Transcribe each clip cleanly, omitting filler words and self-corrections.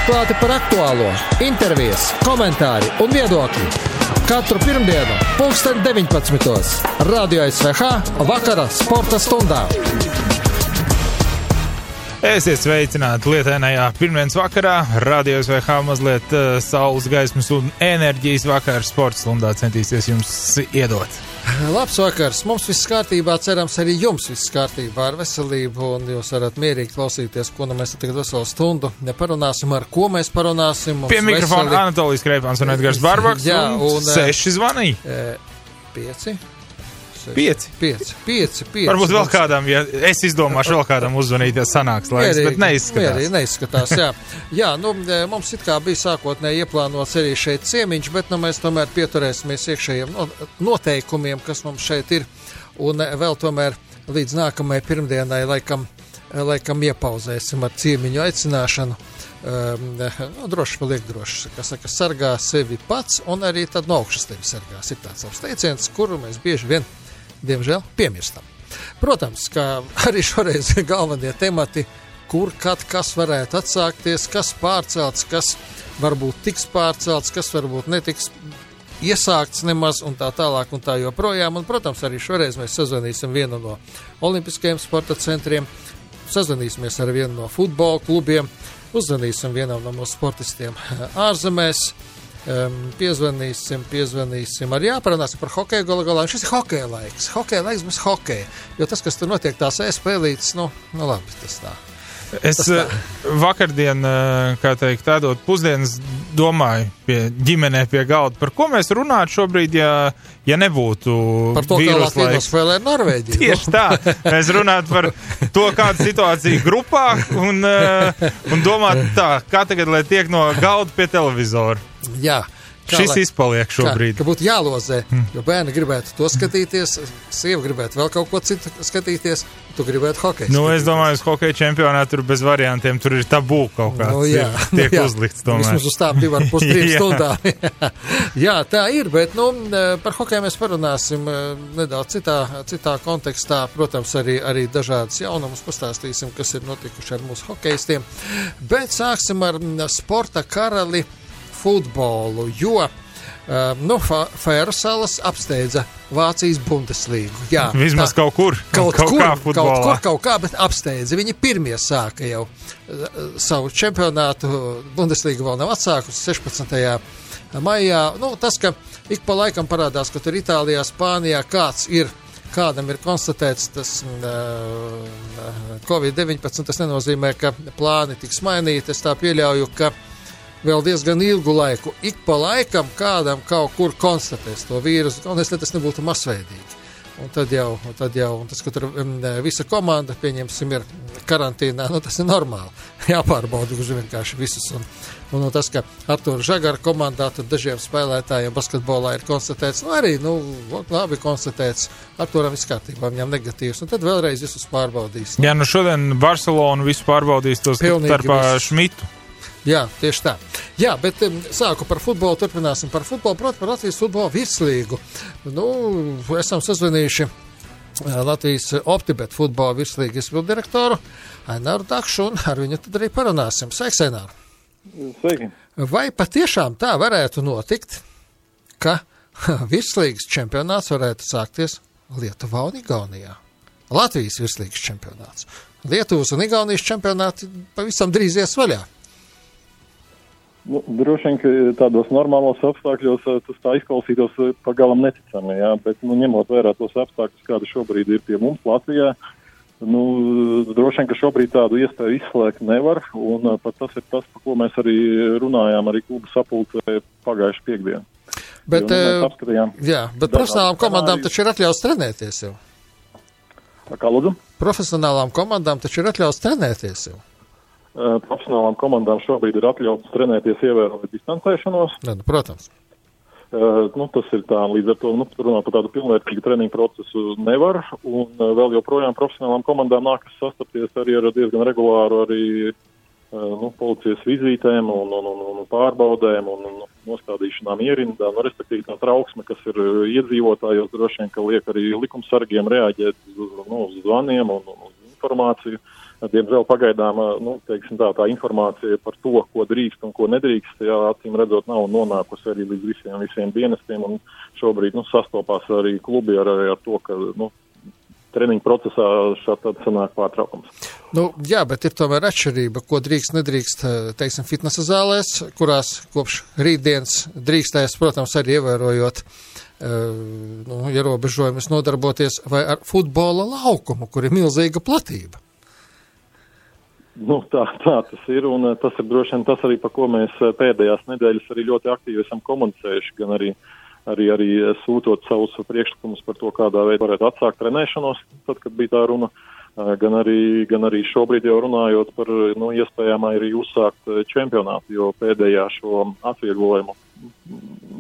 Atklāti par aktuālo, intervijas, komentāri un viedokļi. Katru pirmdienu, 19:00. Radio SVH vakara sporta stundā. Esiet sveicināti lietainajā pirmdienas vakarā. Radio SVH mazliet saules gaismas un enerģijas vakar sporta stundā centīsies jums iedot. Labs vakars, mums viss kārtībā, cerams arī jums viss kārtībā ar veselību, un jūs varat mierīgi klausīties, ko mēs tagad veselu stundu neparunāsim, ar ko mēs parunāsim. Pie mikrofona Anatolijas Kreipāns un Edgars Barbaks, un 6 zvanīja. 5. Varbūt vēl kādam, ja es izdomāšu vēl kādam uzzvanīt, ja sanāks laiks, bet neizskatās. Neizskatās, jā. Jā, mums it kā bija sākotnēji ieplānots arī šeit ciemiņš, bet mēs tomēr pieturēsimies iekšējiem noteikumiem, kas mums šeit ir, un vēl tomēr līdz nākamajai pirmdienai laikam iepauzēsim ar ciemiņu aicināšanu. Droši paliek droši, kā saka, sargā sevi pats, un arī tad no augšas tevi sargās. Ir tāds savs teiciens, kuru mēs bieži vien, diemžēl, piemirstam. Protams, ka arī šoreiz galvenie temati, kur, kad, kas varētu atsākties, kas pārcelts, kas varbūt tiks pārcelts, kas varbūt netiks iesākts nemaz, un tā tālāk un tā joprojām. Un, protams, arī šoreiz mēs sazvanīsim vienu no olimpiskajiem sporta centriem, sazvanīsimies ar vienu no futbola klubiem, uzzvanīsim vienam no mūsu sportistiem ārzemēs, piezvanīsim, arī jāparunāsim par hokeju galā. Šis ir hokeja laiks bez hokeja, jo tas, kas tur notiek, tās spēlītas, labi, tas tā. Es vakardien, kā teikt, tādot pusdienas domāju ģimenē pie galda, par ko mēs runātu šobrīd, ja nebūtu par to, kā Latvijas spēlē ar Norvēģiju. Tieši tā, mēs runātu par to, kāda situācija grupā un domāt tā, kā tagad, lai tiek no galda pie televizora. Jā. Šis izpaliek šobrīd. Ka būtu jālozē, jo bērni gribētu to skatīties, sieva gribētu vēl kaut ko citu skatīties, tu gribētu hokeju. Es domāju, uz hokeja čempionātu tur bez variantiem, tur ir tabū kaut kāds, tiek uzlikts tomēr. Vismaz uz tām 2,5-3 stundām. Jā, tā ir, bet par hokeju mēs parunāsim nedaudz citā kontekstā. Protams, arī dažādas jaunumus pastāstīsim, kas ir notikuši ar mūsu hokejistiem. Bet sāksim ar sporta karali futbolu, jo Fēru salas apsteidza Vācijas Bundeslīgu. Jā, vismaz kaut kur, bet apsteidza. Viņi pirmie sāka jau savu čempionātu, Bundeslīga vēl nav atsākusi 16. maijā. Tas, ka ik pa laikam parādās, ka tur Itālijā, Spānijā kādam ir konstatēts tas Covid-19, tas nenozīmē, ka plāni tiks mainīti. Es tā pieļauju, ka vēl diezgan ilgu laiku, ik pa laikam kādam kaut kur konstatēs to vīrusu, un tas nebūtu masveidīgi. Un tad jau, un tas, ka tur visa komanda, pieņemsim, ir karantīnā, tas ir normāli. Jāpārbauda uz vienkārši visus. Un tas, ka Artūra Žagara komandā, tad dažiem spēlētājiem basketbolā ir konstatēts, labi konstatēts, Artūram viss kārtībā, viņam negatīvs, un tad vēlreiz visus pārbaudīs. Jā, šodien Barcelonu visu pārbaudīs tos starpā Šmitu. Jā, tieši tā. Jā, bet sāku par futbolu, turpināsim par futbolu, proti par Latvijas futbola virslīgu. Esam sazvanījuši Latvijas Optibet futbola virslīgas izpilddirektoru Aināru Dakšu, un ar viņu tad arī parunāsim. Sveiks, Ainār! Sveiki! Vai patiešām tā varētu notikt, ka virslīgas čempionāts varētu sākties Lietuvā un Igaunijā? Latvijas virslīgas čempionāts. Lietuvas un Igaunijas čempionāti pavisam drīz ies vaļā. Droši vien, ka tādos normālos apstākļos tas tā izklausītos pagalam neticami, jā, bet ņemot vērā tos apstākļus, kādi šobrīd ir pie mums Latvijā, droši vien, ka šobrīd tādu iespēju izslēgt nevar, un pat tas ir tas, par ko mēs arī runājām arī klubu sapulcē pagājuši piekdienu. Bet, bet profesionālām komandām taču ir atļauts trenēties jau. Kā lūdzu? Profesionālām komandām taču ir atļauts trenēties jau. Profesionālām komandām šobrīd ir atļauts trenēties ievērojot distancēšanos. Protams. Tas ir tā, līdz ar to runāt par tādu pilnvērtīgu treniņu procesu nevar, un vēl joprojām profesionālām komandām nākas sastapties arī ar diezgan regulāru arī policijas vizītēm un pārbaudēm un nostādīšanām ierindā, respektīvi tā trauksme, kas ir iedzīvotājos, droši vien, ka liek arī likumsargiem reaģēt uz zvaniem un uz informāciju. Diemžēl pagaidām, teiksim tā informācija par to, ko drīkst un ko nedrīkst, acīm redzot, nav nonākusi arī līdz visiem dienestiem, un šobrīd, sastopās arī klubi ar to, ka, treniņu procesā šādi sanāk pārtraukums. Jā, bet ir tomēr atšķirība, ko drīkst, nedrīkst, teiksim, fitnesa zālēs, kurās kopš rītdienas drīkstēs, protams, arī ievērojot ierobežojumus nodarboties, vai ar futbola laukumu, kur ir milzīga platība. Tā tas ir, un tas ir droši vien tas arī, par ko mēs pēdējās nedēļas arī ļoti aktīvi esam komunicējuši, gan arī sūtot savus priekšlikumus par to, kādā veidā varētu atsākt trenēšanos, tad, kad bija tā runa, gan arī šobrīd jau runājot par iespējām arī uzsākt čempionātu, jo pēdējā šo atvieglojumu,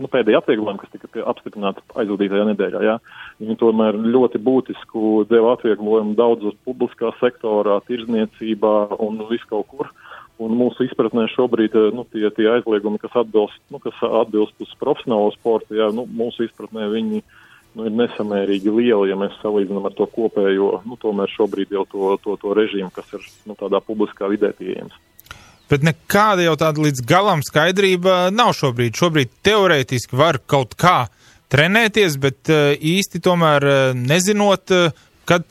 pēdējā atvieglojumu, kas tika apstiprināta aizvadītajā nedēļā, viņi tomēr ļoti būtisku deva atvieglojumu daudz uz publiskā sektorā, tirdzniecībā un viskaut kur. Un mūsu izpratnē šobrīd tie aizliegumi, kas atbilst uz profesionālo sportu, mūsu izpratnē viņi ir nesamērīgi lieli, ja mēs salīdzinām ar to kopējo, tomēr šobrīd jau to režīmu, kas ir tādā publiskā vidē pieejams. Bet nekāda jau tāda līdz galam skaidrība nav šobrīd. Šobrīd teorētiski var kaut kā trenēties, bet īsti tomēr nezinot, kad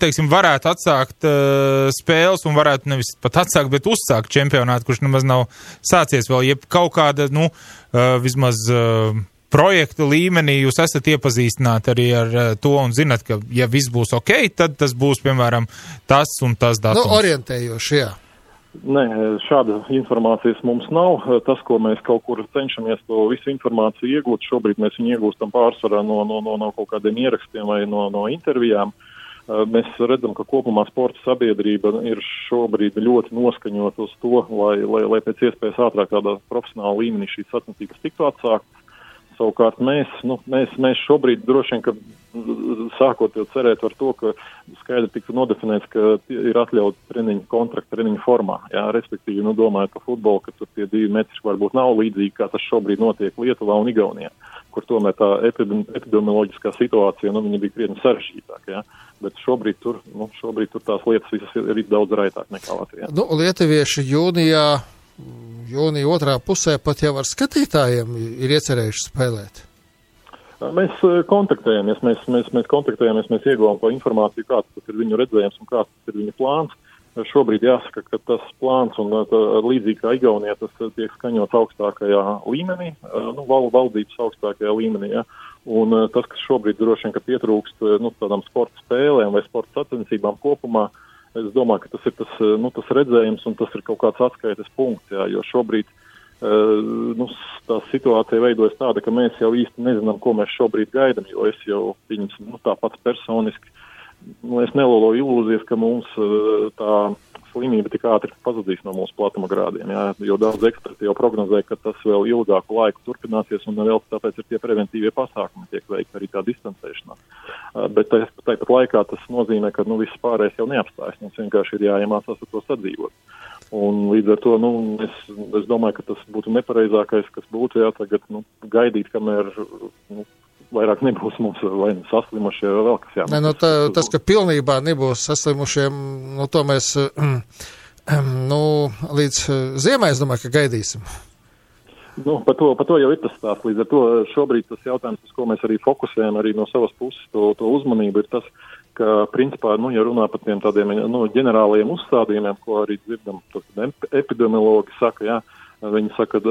teiksim, varētu atsākt spēles un varētu nevis pat atsākt, bet uzsākt čempionātu, kurš nemaz nav sācies vēl, jeb kaut kāda, vismaz projekta līmenī jūs esat iepazīstināti arī ar to un zinat, ka ja viss būs ok, tad tas būs, piemēram, tas un tas datums. Orientējoši, jā. Nē, šāda informācijas mums nav. Tas, ko mēs kaut kur cenšamies to visu informāciju iegūt, šobrīd mēs viņu iegūstam pārsvarā no kaut kādiem ierakstiem vai no intervijām. Mēs redzam, ka kopumā sporta sabiedrība ir šobrīd ļoti noskaņot uz to, lai pēc iespējas ātrāk tādā profesionāla līmenī šīs sacensības tiktu atsāktas. Savukārt mēs šobrīd droši vien, ka sākot jau cerēt ar to, ka skaidri tika nodefinēts, ka ir atļauts treniņu kontraktu treniņu formā. Jā, respektīvi, domājot par futbolu, ka tur tie 2 metri varbūt nav līdzīgi, kā tas šobrīd notiek Lietuvā un Igaunijā, kur tomēr tā epidemioloģiskā situācija, viņa bija krietni sarežģītāka, jā. Bet šobrīd tur tās lietas visas ir daudz raitāk nekā Latvijā. Lietuvieši jūnija otrā pusē pat jau ar skatītājiem ir iecerējuši spēlēt. Mēs kontaktējamies, mēs ieguvām to informāciju, kāds tas ir viņu redzējums un kāds tas ir viņu plāns. Šobrīd jāsaka, ka tas plāns un līdzīgi kā Igaunijā tas tiek skaņots augstākajā līmenī, valdības augstākajā līmenī, ja. Un tas, kas šobrīd droši vien, ka pietrūkst tādām sporta spēlēm vai sporta sacensībām kopumā, es domāju, ka tas ir tas redzējums un tas ir kaut kāds atskaites punkts, jā, jo šobrīd tā situācija veidojas tāda, ka mēs jau īsti nezinām, ko mēs šobrīd gaidam, jo es jau tāpat personiski, es neloloju ilūzijas, ka mums tā slimība tik ātri pazudīs no mūsu platuma grādiem, jā, jo daudz eksperti jau prognozē, ka tas vēl ilgāku laiku turpināsies un vēl tāpēc ir tie preventīvie pasākumi, tiek veikti arī tā distancēšanās. Bet tāpat laikā tas nozīmē, ka viss pārējais jau neapstājas, mums vienkārši ir jāiemācās ar to sadzīvot. Un līdz ar to, es domāju, ka tas būtu nepareizākais, kas būtu, jā, tagad, gaidīt, kamēr, vairāk nebūs mums vai saslimušie vai vēl kas jāmēs. Tas, ka pilnībā nebūs saslimušiem, to mēs, līdz ziemai, es domāju, ka gaidīsim. Par to jau ir tas stāsts. Līdz ar to šobrīd tas jautājums, uz ko mēs arī fokusējam arī no savas puses to uzmanību, ir tas, ka, principā, ja runā par tiem tādiem ģenerālajiem uzstādījumiem, ko arī dzirdam, epidemiologi saka, jā, viņi saka,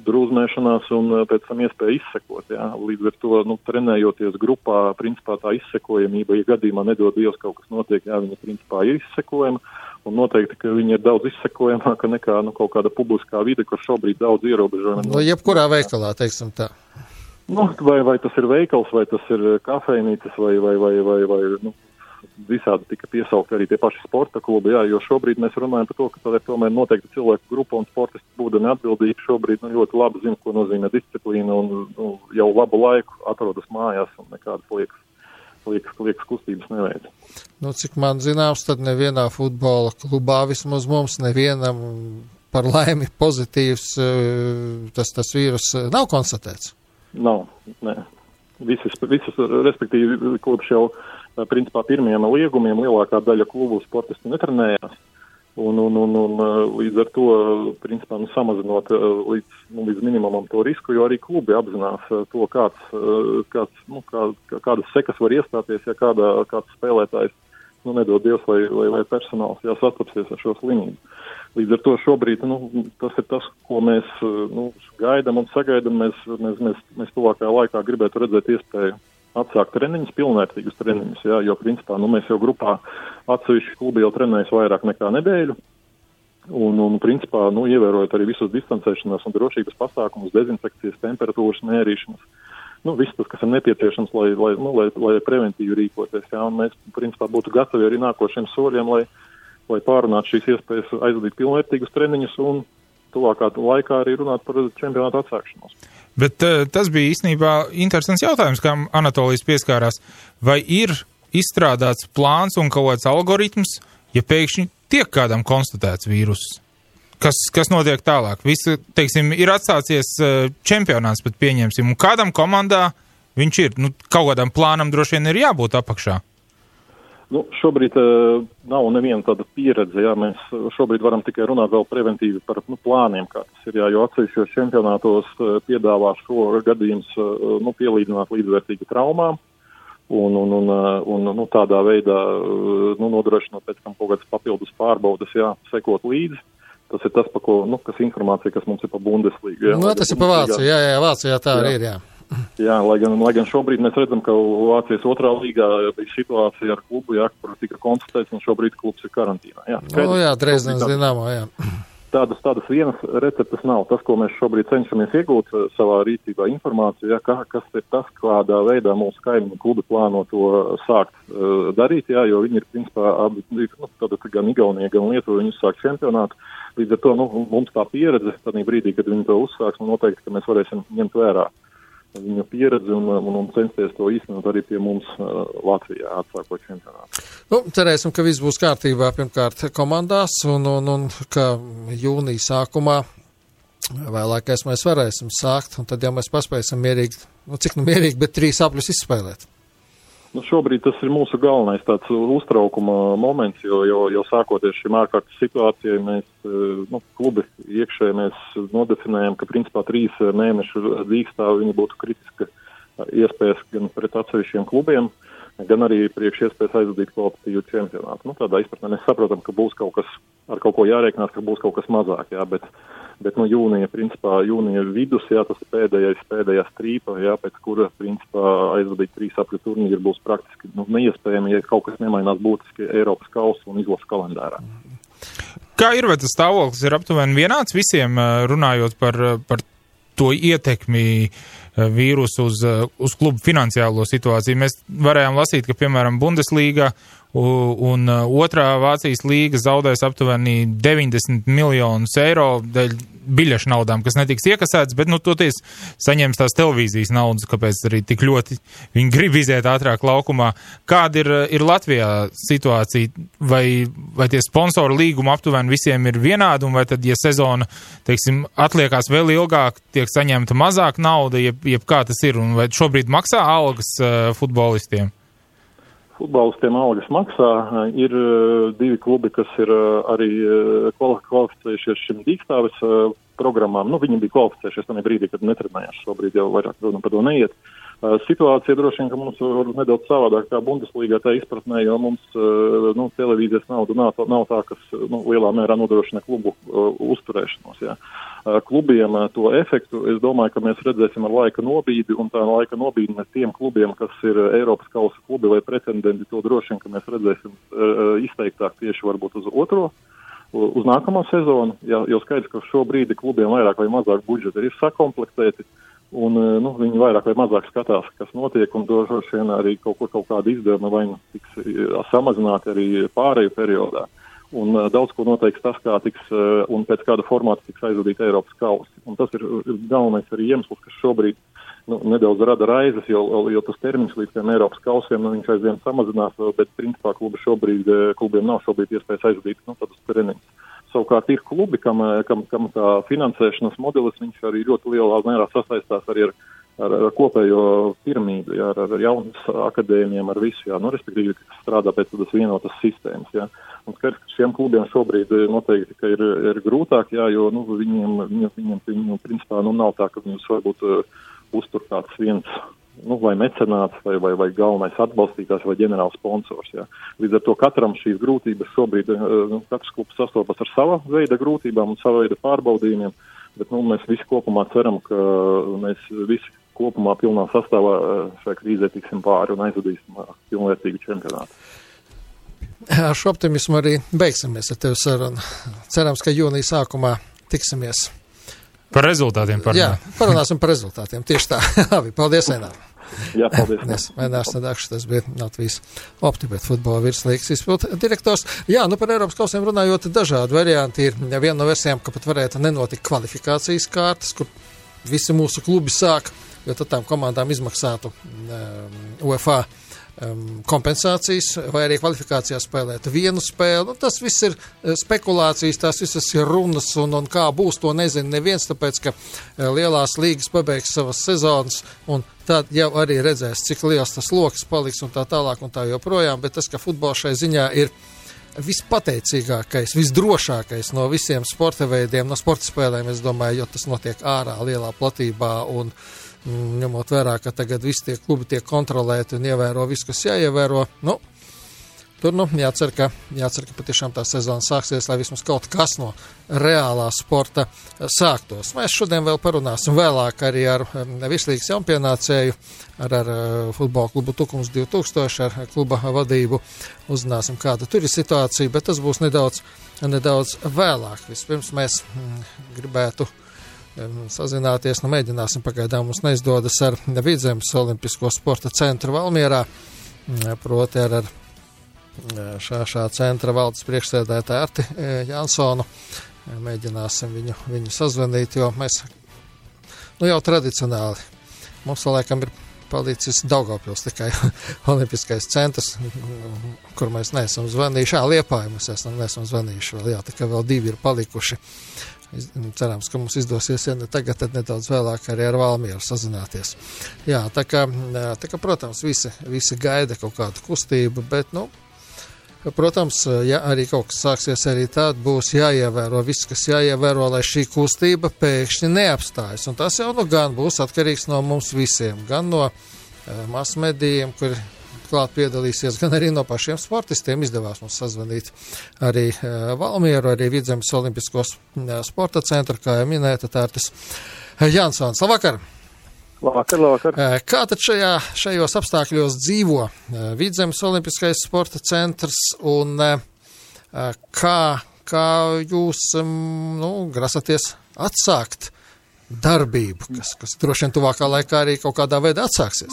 drūzmēšanās un pēc tam iespēja izsekot, jā, līdz ar to, trenējoties grupā, principā tā izsekojamība, ja gadījumā nedod Dievs kaut kas notiek, jā, viņa principā ir izsekojama, un noteikti, ka viņi ir daudz izsekojamāka nekā, kaut kāda publiskā vide, kur šobrīd daudz ierobežojumi. Jebkurā veikalā, teiksim tā. Vai tas ir veikals, vai tas ir kafejnīcas, vai visādi tika piesaukt arī tie paši sporta klubi, jā, jo šobrīd mēs runājam par to, ka tā ir tomēr noteikti cilvēku grupa un sportisti būdami atbildīgi šobrīd ļoti labi zina, ko nozīmē disciplīna un jau labu laiku atrodas mājās un nekādas liekas kustības neveic. Cik man zināms, tad nevienā futbola klubā vismaz mums nevienam par laimi pozitīvs tas vīrus nav konstatēts. Nav, nē. Visas, respektīvi, kopš jau principā pirmiem liegumiem lielākā daļa klubu sportisti netrenējās. Un līdz ar to, principā, samazinot līdz minimumam to risku, jo arī klubi apzinās to, kādas sekas var iestāties, ja kāds spēlētājs, nedod Dievs, lai personāls sastapsies ar šo slimību. Līdz ar to šobrīd, tas ir tas, ko mēs gaidam un sagaidam. Mēs tuvākajā laikā gribētu redzēt iespēju atsākt treniņus, pilnvērtīgus treniņus, jo principā, mēs jau grupā atsevišķi klubi jau trenējas vairāk nekā nedēļu. Un principā, ievērojot arī visus distancēšanās un drošības pasākumus, dezinfekcijas, temperatūras mērīšanas. Viss tas, kas ir nepieciešams, lai preventīvi rīkoties. Un mēs, principā, būtu gatavi arī nākošiem soļiem, lai pārunātu šīs iespējas aizvadīt pilnvērtīgus treniņus un tuvākā laikā arī runāt par čempionātu atsākšanos. Bet tas bija īstenībā interesants jautājums, kam Anatolijas pieskārās. Vai ir izstrādāts plāns un kaut kāds algoritms, ja pēkšņi tiek kādam konstatēts vīruss? Kas notiek tālāk? Visi, teiksim, ir atsācies čempionāts, pat pieņemsim, un kādam komandā viņš ir? Kaut kādam plānam droši vien ir jābūt apakšā. Šobrīd nav neviena tāda pieredze, mēs šobrīd varam tikai runāt vēl preventīvi par plāniem, kā tas ir, jo atsevišķos čempionātos piedāvā šo gadījumus pielīdzināt līdzvērtīgi traumām un tādā veidā nodrošinot pēc tam kaut kādas papildus pārbaudas, sekot līdzi. Tas ir tas, kas informācija, kas mums ir pa Bundesliga. Tas ir pa Vāciju, Vācijā tā arī ir, lai gan šobrīd mēs redzam, ka Vācijas otrā līgā bija situācija ar klubu, kur tika konstatēts, un šobrīd klubs ir karantīnā. Dresdenes Dinamo, Tādas vienas receptes nav. Tas, ko mēs šobrīd cenšamies iegūt savā rīcībā informāciju, kas ir tas, kādā veidā mūsu kaimiņu klubi plāno to sākt darīt, jo viņi ir, principā, gan Igaunija, gan Lietuva, viņi uzsāk čempionātu. Līdz ar to, mums tā pieredze, tādā brīdī, kad viņi to uzsāks, noteikti, ka mēs varēsim ņemt vērā viņa pieredzi un censties to īstenot arī pie mums Latvijā atsākot čempionātu. Cerēsim, ka viss būs kārtībā pirmkārt komandās un ka jūnija sākumā vēlākais mēs varēsim sākt, un tad jau mēs paspēsim mierīgi, mierīgi, bet 3 apļus izspēlēt. Šobrīd tas ir mūsu galvenais tāds uztraukuma moments, jo sākoties šim ārkārtas situācijai, mēs, klubi iekšēji mēs nodefinējam, ka principā 3 mēnešu dīkstāvi viņi būtu kritiska iespējas gan pret atsevišķiem klubiem, gan arī priekš iespējas aizvadīt kvalitatīvu čempionātu. Tādā izpratnē mēs saprotam, ka būs kaut kas, ar kaut ko jārēķinās, ka būs kaut kas mazāk, bet jūnija vidus, tas ir pēdējā strīpa, pēc kura, principā, aizvadīt 3 apļu turnīru būs praktiski neiespējami, ja kaut kas nemainās būtiski Eiropas kausa un izlases kalendārā. Kā ir, vai tas stāvoklis ir aptuveni vienāds visiem, runājot par to ietekmi vīrusu uz klubu finansiālo situāciju? Mēs varējām lasīt, ka, piemēram, Bundesliga un otrā Vācijas līga zaudēs aptuveni 90 miljonus eiro dēļ biļešu naudām, kas netiks iekasēts, bet, toties saņems tās televīzijas naudas, kāpēc arī tik ļoti viņi grib iziet ātrāk laukumā. Kāda ir Latvijā situācija? Vai tie sponsoru līgumi aptuveni visiem ir vienādi, un vai tad, ja sezona, teiksim, atliekās vēl ilgāk, tiek saņemta mazāk nauda, jeb kā tas ir, un vai šobrīd maksā algas futbolistiem? Futbolistiem algas maksā. Ir 2 klubi, kas ir arī kvalificējušies šim dīkstāves programmām. Viņi bija kvalificējušies tajā brīdī, kad netrenējās. Šobrīd jau vairāk runa par to neiet. Situācija droši vien, ka mums var nedaudz savādāk kā Bundeslīgā tā izpratnē, jo mums televīzijas nauda nav tā, kas lielā mērā nodrošina klubu uzturēšanos. Klubiem to efektu, es domāju, ka mēs redzēsim ar laika nobīdi, un tā laika nobīdi tiem klubiem, kas ir Eiropas kausa klubi vai pretendenti, to droši vien, ka mēs redzēsim izteiktāk tieši varbūt uz nākamo sezonu, jo skaidrs, ka šobrīd klubiem vairāk vai mazāk budžeti ir sakomplektēti, un viņi vairāk vai mazāk skatās, kas notiek, un droši vien arī kaut kāda izdevuma vai tiks samazināti arī pāreju periodā. Un daudz ko noteiks tas, kā tiks un pēc kāda formāta tiks aizvadīt Eiropas kausi. Un tas ir galvenais arī iemesls, kas šobrīd nedaudz rada raizes, jo tas termiņš līdz tiem Eiropas kausiem viņš aizvien samazinās, bet principā klubiem nav šobrīd iespējas aizvadīt tādus treniņus. Savukārt ir klubi, kam tā finansēšanas modelis, viņš arī ļoti lielā mērā sasaistās arī ar ar kopējo piramīdu, jā, ar jaunas akadēmijām, ar visu, jā, respektīvi, kas strādā pēc tādas vienotas sistēmas, jā. Un skaidrs, ka šiem klubiem šobrīd noteikti, ka ir grūtāk, jā, jo, viņiem principā, nav tā, ka viņus varbūt uztur kāds viens, vai mecenāts, vai galvenais atbalstītājs, vai ģenerāls sponsors, jā. Līdz ar to katram šīs grūtības šobrīd, katrs klubs sastopas ar sava veida grūtībām un sava veida pārbaudījumiem, bet, mēs visi kopumā ceram, ka mēs visi kopumā pilnā sastāvā šai krīzē tiksim pāri un aizvadīsim pilnvērtīgu čempionātu. Ar šo optimismu arī beigsimies ar tevi sarunu. Cerams, ka jūnija sākumā tiksimies. Par rezultātiem parunāt. Jā, parunāsim par rezultātiem. Tieši tā. Labi, paldies, Einār. Jā, paldies. Einārs Sadakšs, tas bija Latvijas Optibet futbola virslīgas izpildu direktors. Jā, par Eiropas kausiem runājot, dažādi varianti ir. Viena no versijām, ka pat varētu nenotikt kvalifikācijas kārtas, kur visi mūsu klubi sāk, jo tad tām komandām izmaksātu UEFA kompensācijas, vai arī kvalifikācijā spēlēt vienu spēli. Tas viss ir spekulācijas, tās visas ir runas, un kā būs, to nezina neviens, tāpēc, ka lielās līgas pabeigs savas sezonas, un tad jau arī redzēs, cik liels tas loks paliks, un tā tālāk, un tā joprojām, bet tas, ka futbols šai ziņā ir vispateicīgākais, visdrošākais no visiem sporta veidiem, no sporta spēlēm, es domāju, jo tas notiek ārā lielā platībā, un ņemot vērā, ka tagad visi tie klubi tiek kontrolēti un ievēro visu, kas jāievēro, tur jācer, ka patiešām tā sezona sāksies, lai vismaz kaut kas no reālā sporta sāktos. Mēs šodien vēl parunāsim vēlāk arī ar virslīgas jaunpienācēju, ar futbola klubu Tukums 2000, ar kluba vadību. Uzzināsim, kāda tur ir situācija, bet tas būs nedaudz vēlāk. Vispirms mēs gribētu sazināties, mēģināsim, pagaidām mums neizdodas ar Vidzemes Olimpisko sporta centru Valmierā, proti ar šā centra valdes priekšsēdētāju Arti Jansonu. Mēģināsim viņu sazvanīt, jo mēs, jau tradicionāli, mums laikam ir palicis Daugavpils tikai Olimpiskais centrs, kur mēs neesam zvanījuši. Liepāju mēs neesam zvanījuši vēl, tikai vēl 2 ir palikuši. Cerams, ka mums izdosies, ja ne tagad, tad nedaudz vēlāk arī ar Valmieru sazināties. Jā, tā kā protams, visi gaida kaut kādu kustību, bet, protams, ja arī kaut kas sāksies, arī tād būs jāievēro viss, kas jāievēro, lai šī kustība pēkšņi neapstājas. Un tas jau gan būs atkarīgs no mums visiem, gan no masmedijiem, kuri klāt piedalīsies, gan arī no pašiem sportistiem. Izdevās mums sazvanīt arī Valmieru, arī Vidzemes Olimpiskos sporta centru, kā jau minēta, Artis Jansons. Labvakar! Labvakar! Kā tad šajos apstākļos dzīvo Vidzemes Olimpiskais sporta centrs un kā jūs grasaties atsākt darbību, kas droši vien tuvākā laikā arī kaut kādā veidā atsāksies?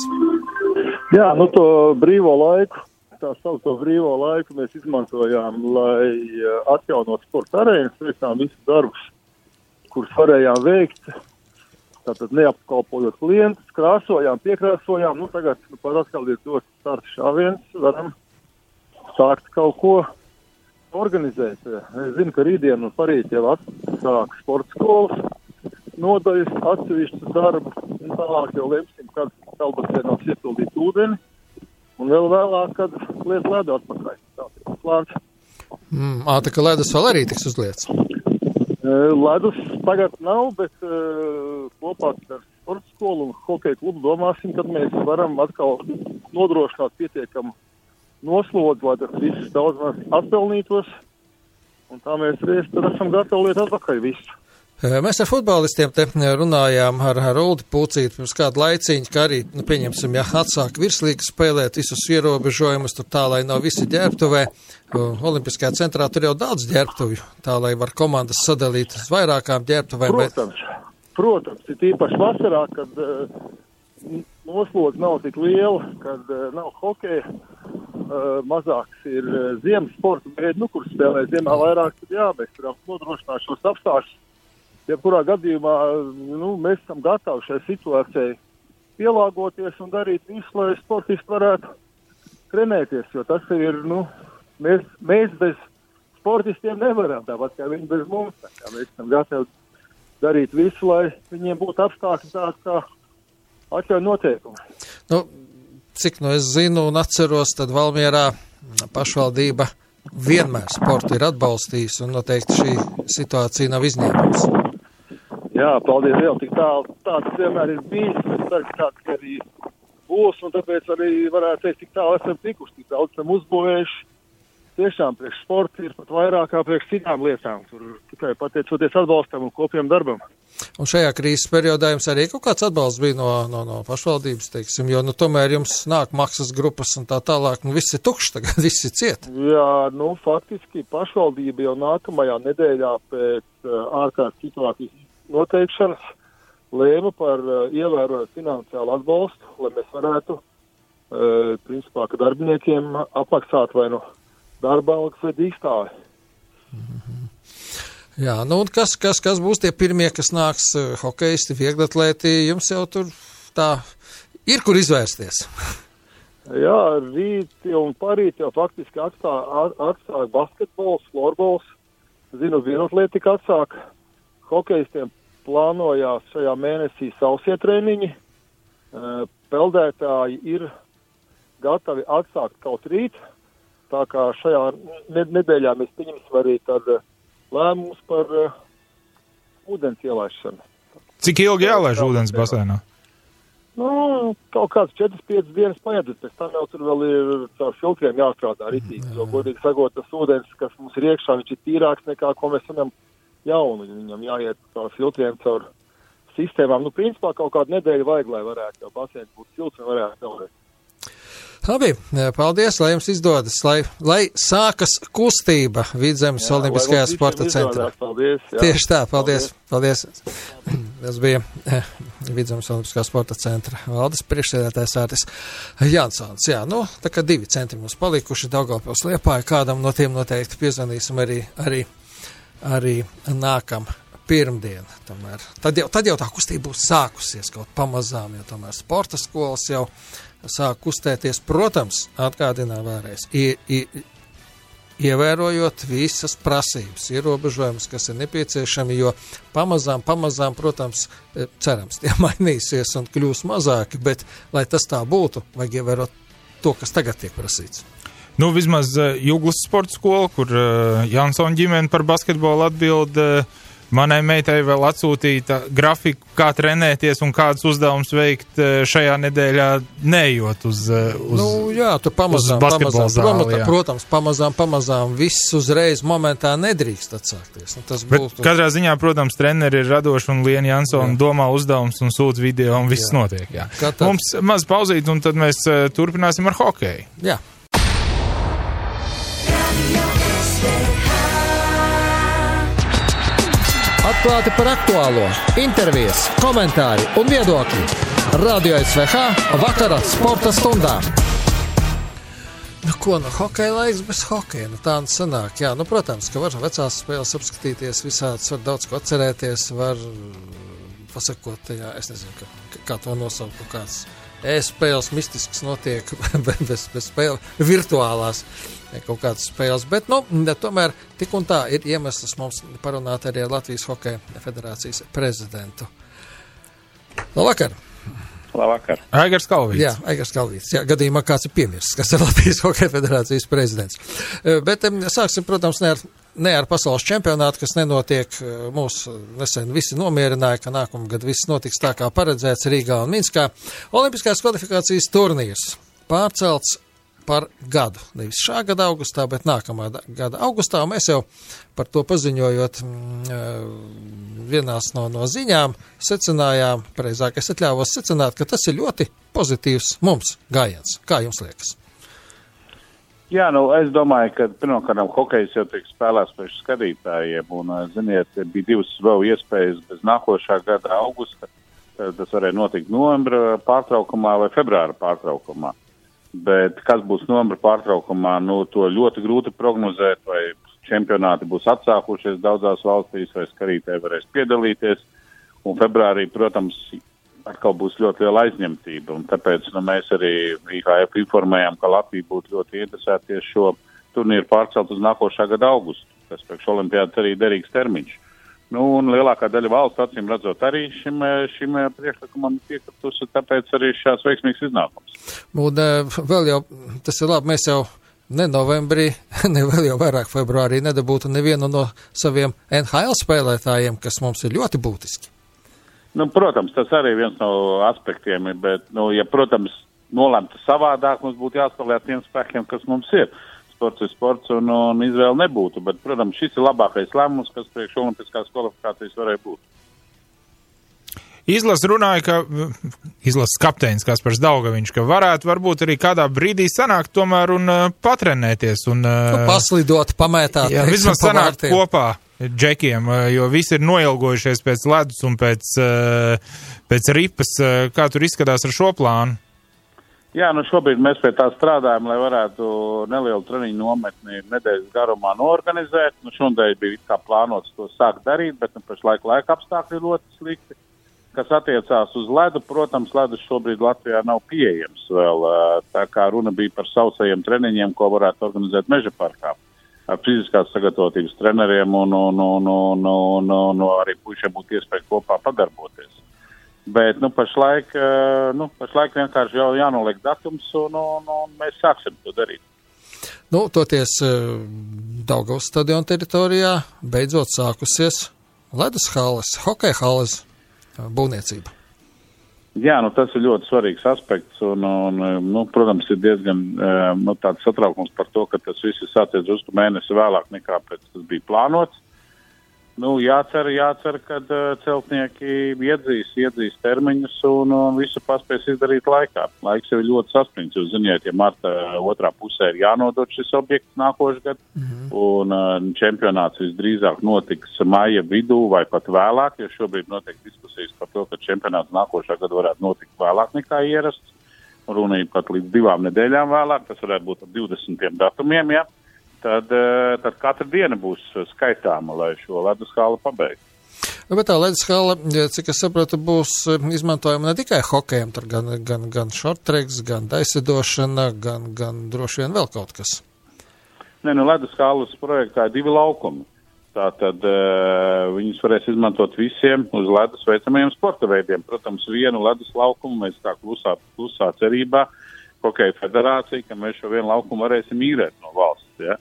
Jā, to brīvo laiku, tā saucamo brīvo laiku mēs izmantojām, lai atjaunot sporta arēnas, veicām visus darbus, kurus varējām veikt, tātad neapkalpojot klientus, krāsojām, piekrāsojām, tagad par atkal ir dots starts šāviens, varam sākt kaut ko organizēt. Es zinu, ka rītdien un parīt jau atsāk sporta skolas, nodaļas atsevišķu darbu, un tālāk jau lemsim, kad Kalbasēnos iepildīt ūdeni, un vēl vēlāk, kad liet ledu atpakaļ. Tāds ir plāns. Tā kā ledus vēl arī tiks uzliets? Ledus tagad nav, bet kopā ar sporta skolu un hokeja klubu domāsim, kad mēs varam atkal nodrošināt pietiekamu noslodzi, lai tas viss daudz maz atpelnītos, un tā mēs reiz tad esam gatavi liet atpakaļ visu. Mēs ar futbolistiem te runājām ar Uldi Pūcīti pirms kādu laiciņu, ka arī, pieņemsim, atsāk virslīgas spēlēt visus ierobežojumus, tur tā, lai nav visi ģērbtuvē. Olimpiskajā centrā tur jau daudz ģērbtuvju, tā, lai var komandas sadalīt uz vairākām ģērbtuvēm. Protams, ir īpaši vasarā, kad noslodze nav tik liela, kad nav hokeja, mazāks ir ziemas sporta veidi, kur spēlē ziemā vairāk, tad mēs varam nodrošināt šos apstākļus. Jebkurā gadījumā mēs esam gatavi šai situācijai pielāgoties un darīt visu, lai sportisti varētu trenēties, jo tas ir, mēs bez sportistiem nevaram, tāpat kā viņi bez mums. Mēs esam gatavi darīt visu, lai viņiem būtu apstākļi tādi, kā atļauj noteikumi. Nu, cik es zinu un atceros, tad Valmierā pašvaldība vienmēr sportu ir atbalstījis, un noteikti šī situācija nav izņēmums. Jā, paldies Dievam, tik tāds vienmēr ir bijis, es ceru, ka tāds arī būs, un tāpēc arī varētu teikt, tik tālu esam tikuši, tik daudz esam uzbūvējuši. Tiešām priekš sporta ir pat vairāk kā priekš citām lietām, tur tikai pateicoties atbalstam un kopiem darbam. Un šajā krīzes periodā jums arī kaut kāds atbalsts bija no pašvaldības, teiksim, jo, tomēr jums nāk maksas grupas un tā tālāk, viss ir tukšs tagad, viss ir ciet. Jā, faktiski pašvaldība jau nākamajā nedēļā pēc ārkārtas situācijas noteikšanas lēma par ievērojot finansiālu atbalstu, lai mēs varētu, principā, ka darbiniekiem apmaksāt vai darba algas vai dīkstāvi. Jā, un kas būs tie pirmie, kas nāks hokeisti, vieglatlēti, jums jau tur tā ir, kur izvērsties? Jā, rīt un parīt jau faktiski atsāk basketbols, florbols, zinu, vieglatlētika atsāk, hokeistiem plānojās šajā mēnesī sausie treniņi, peldētāji ir gatavi atsākt kaut rīt, tā kā šajā nedēļā mēs pieņemsim arī tad lēmumus par ūdens ielaišanu. Cik ilgi jālaiž ūdens basēnā? Kaut kāds 4-5 dienas paiet, pēc tam jau tur vēl ir caur filtriem jāstrādā ritīgi, jo godīgi sakot, tas ūdens, kas mums ir iekšā, viņš ir tīrāks nekā, ko mēs varam jaunu, viņam jāiet caur filtriem, caur sistēmām. Principā kaut kādu nedēļu vajag, lai varētu jau basēns būt silts un varētu peldēt. Labi, paldies, lai jums izdodas, lai sākas kustība Vidzemes Olimpiskajā sporta centrā. Paldies, jā. Tieši tā, paldies. Tas bija Vidzemes Olimpiskā sporta centra valdes priekšsēdētājs Ārtis Jansons. Jā, tā kā 2 centri mums palikuši Daugavpils Liepāja, kādam no tiem noteikti piezvanīsim arī nākam pirmdien. Tad jau tā kustība būs sākusies kaut pamazām, jo tomēr sporta skolas jau sāk kustēties, protams, atgādinā vēlreiz, ievērojot visas prasības, ierobežojumus, kas ir nepieciešami, jo pamazām, protams, cerams, tie mainīsies un kļūs mazāki, bet, lai tas tā būtu, vajag ievērot to, kas tagad tiek prasīts. Vismaz Juglas sporta skola, kur Jansona ģimene par basketbolu atbild, manai meitai vēl atsūtīta grafiku, kā trenēties un kādas uzdevumus veikt šajā nedēļā, neejot uz basketbola zāli. Protams, pamazām viss uzreiz momentā nedrīkst atsākties. Bet katrā ziņā, protams, treneri ir radoši un Liena Jansona domā uzdevums un sūta video un viss notiek. Jā. Mums maz pauzīt un tad mēs turpināsim ar hokeju. Jā. Atklāti par aktuālo, intervijas, komentāri un viedokļi. Radio SVH vakara sporta stundā. Hokeja laiks bez hokeja, tā sanāk. Jā, protams, ka var vecās spēles apskatīties, visādas var daudz ko atcerēties, var pasakot, es nezinu, kā to nosaukt, kāds e-spēles mistisks notiek bez spēle, virtuālās kaut kādas spēles, bet, tomēr tik un tā ir iemesls mums parunāt arī ar Latvijas Hokeja federācijas prezidentu. Labvakar! Labvakar! Aigars Kalvīts. Jā, Aigars Kalvīts. Jā, gadījumā kāds ir piemirsts, kas ir Latvijas Hokeja federācijas prezidents. Bet sāksim, protams, ne ar pasaules čempionātu, kas nenotiek. Mūs nesen visi nomierināja, ka nākamgad viss notiks tā, kā paredzēts Rīgā un Minskā. Olimpiskās kvalifikācijas turnīrs pārcelts par gadu. Nevis šā gada augustā, bet nākamā gada augustā. Un mēs jau par to paziņojot vienās no ziņām secinājām, pareizāk es atļāvos secināt, ka tas ir ļoti pozitīvs mums gājiens. Kā jums liekas? Jā, es domāju, ka pirmkārt hokejs jau tiek spēlēts priekš skatītājiem, un, ziniet, bija 2 vēl iespējas bez nākošā gada augusta. Tas varēja notikt novembra pārtraukumā vai februāra pārtraukumā. Bet kas būs novembra pārtraukumā, to ļoti grūti prognozēt, vai čempionāti būs atsākušies daudzās valstīs, vai skatītāji varēs piedalīties. Un februārī, protams, atkal būs ļoti liela aizņemtība. Un tāpēc mēs arī IHF informējām, ka Latvija būtu ļoti interesēties šo turnīru pārcelt uz nākošā gada augustu, kas priekš olimpiādas arī derīgs termiņš. Nu, un lielākā daļa valsts, acīm redzot, arī šim priekšlikumam piekritusi, tāpēc arī šās veiksmīgs iznākums. Un vēl jau, tas ir labi, mēs jau ne novembrī, ne vēl jau vairāk februārī nedabūtu nevienu no saviem NHL spēlētājiem, kas mums ir ļoti būtiski. Nu, protams, tas arī viens no aspektiem ir, bet, nu, ja, protams, nolemta savādāk, mums būtu jāspēlē tiem spēkiem, kas mums ir. Sports ir sports un izvēle nebūtu, bet, protams, šis ir labākais lēmums, kas priekš olimpiskās kvalifikācijas varēja būt. Izlases kapteinis Kaspars Daugaviņš, ka varētu varbūt arī kādā brīdī sanākt tomēr un patrenēties. Un, paslidot, pamētāt. Jā, vismaz sanākt kopā džekiem, jo visi ir noilgojušies pēc ledus un pēc ripas. Kā tur izskatās ar šo plānu? Jā, nu šobrīd mēs pie tā strādājam, lai varētu nelielu treniņu nometni nedēļas garumā noorganizēt. Nu šodien bija kā plānots to sākt darīt, bet pašlaik laika apstākļi ļoti slikti. Kas attiecās uz ledu, protams, ledus šobrīd Latvijā nav pieejams vēl. Tā kā runa bija par sausajiem treniņiem, ko varētu organizēt Meža parkā. Ar fiziskās sagatavotības treneriem un arī puišiem būtu iespēja kopā padarboties. Bet, pašlaik vienkārši jau jānoliek datums un mēs sāksim to darīt. Toties Daugavas stadiona teritorijā beidzot sākusies ledus halles, hokeja halles būvniecība. Jā, tas ir ļoti svarīgs aspekts un protams, ir diezgan tāds satraukums par to, ka tas viss ir sācies drusku mēnesi vēlāk nekā pēc tas bija plānots. Jācer, kad celtnieki iedzīs termiņus un visu paspēs izdarīt laikā. Laiks jau ir ļoti saspringts, jūs ziniet, ja marta otrā pusē ir jānodod šis objekts nākošgad, un čempionāts visdrīzāk notiks maija vidū vai pat vēlāk, jo šobrīd notiek diskusijas par to, ka čempionāts nākošā gada varētu notikt vēlāk nekā ierasts, un runa ir pat līdz 2 nedēļām vēlāk, tas varētu būt ar 20 datumiem, ja? Tad katra diena būs skaitāma, lai šo ledus hali pabeigtu. Bet tā ledus hala, cik es saprotu, būs izmantojama ne tikai hokejam, tur gan shorttracks, gan daisidošana, gan droši vien vēl kaut kas. Ledus halas projektā ir 2 laukumi. Tātad viņus varēs izmantot visiem uz ledus veicamajiem sporta veidiem. Protams, vienu ledus laukumu mēs tā klusā cerībā, Hokeja federācija, ka mēs šo vienu laukumu varēsim īrēt no valsts, ja?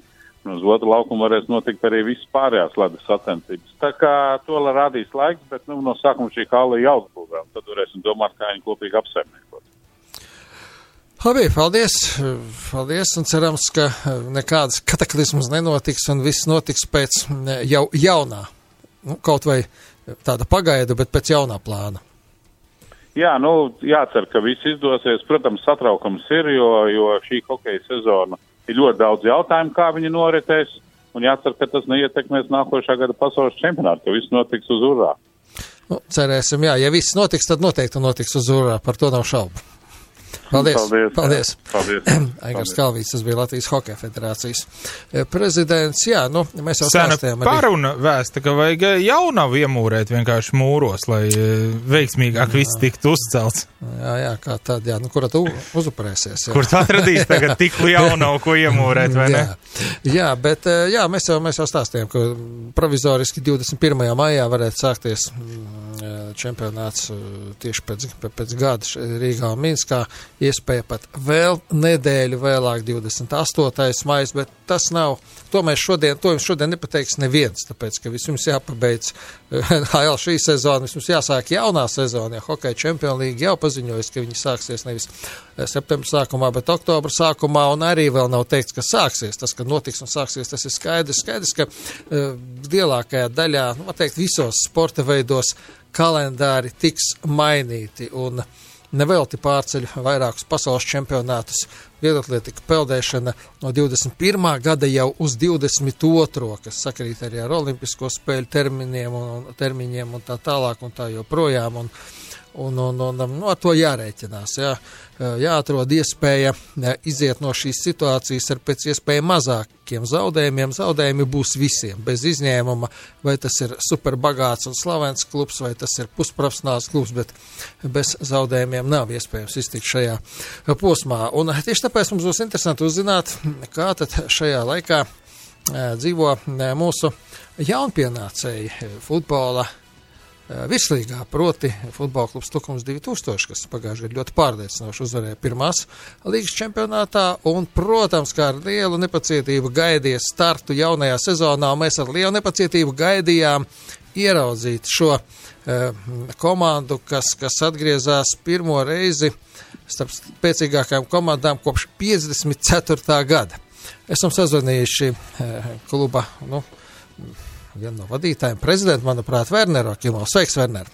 Un uz otru laukumu varēs notikt arī visas pārējās ledus sacensības. Tā kā to rādīs laiks, bet no sākuma šī hala jāuzbūvē, un tad varēsim domāt, kā viņu kopīgi apsaimniekot. Labi, paldies, un cerams, ka nekādas kataklizmas nenotiks, un viss notiks pēc jau jaunā, kaut vai tāda pagaidu, bet pēc jaunā plāna. Jā, jācer, ka viss izdosies. Protams, satraukums ir, jo šī hokeja sezona ir ļoti daudz jautājumu, kā viņi noritēs, un jācer, ka tas neietekmēs nākošā gada pasaules čempionātu, ka viss notiks uz urā. Cerēsim, jā. Ja viss notiks, tad noteikti notiks uz urā, par to nav šaubu. Paldies. Aigars Kalvīts, tas bija Latvijas Hokeja federācijas prezidents. Jā, mēs jau stāstījām. Paruna vēsta, ka vajag jaunavu iemūrēt vienkārši mūros, lai veiksmīgāk viss tiktu uzcelts. Jā, kā tad, kura tu uzupurēsies? Kur tu atradīs tagad tik jaunavu, ko iemūrēt, vai ne? Jā, bet mēs jau stāstījām, ka provizoriski 21. maijā varētu sākties čempionāts tieši pēc gada Rīgā un Minskā. Iespēja pat vēl nedēļu vēlāk, 28. maijs, bet tas nav, to jums šodien nepateiks neviens, tāpēc, ka vispirms jāpabeidz HL šī sezona, vispirms jāsāk jaunā sezona, ja Hokeja Champions League jau paziņojas, ka viņi sāksies nevis septembra sākumā, bet oktobra sākumā, un arī vēl nav teikts, ka sāksies. Tas, ka notiks un sāksies, tas ir skaidrs, ka lielākajā daļā, visos sporta veidos kalendāri tiks mainīti, un nevelti pārceļ vairākus pasaules čempionātus, vieglatlētika peldēšana no 21. gada jau uz 22. kas sakrīt arī ar olimpisko spēļu termiņiem un tā tālāk un tā joprojām. Un ar to jārēķinās. Jāatrod iespēja iziet no šīs situācijas ar pēc iespēja mazākiem zaudējumiem. Zaudējumi būs visiem, bez izņēmuma, vai tas ir superbagāts un slavens klubs, vai tas ir pusprofesionāls klubs, bet bez zaudējumiem nav iespējams iztikt šajā posmā. Un tieši tāpēc mums būs interesanti uzzināt, kā tad šajā laikā dzīvo mūsu jaunpienācēji futbola virslīgā, proti futbola klubs Tukums 2000, kas pagājušajā gadā ļoti pārliecinoši uzvarēja pirmās līgas čempionātā, un, protams, kā ar lielu nepacietību gaidīja startu jaunajā sezonā, un mēs ar lielu nepacietību gaidījām ieraudzīt šo komandu, kas atgriezās pirmo reizi starp spēcīgākajām komandām kopš 54. gada. Esam sazvanījuši kluba, vienu no vadītājiem, prezidentu, manuprāt, Werneru Akimovs. Sveiks, Werner!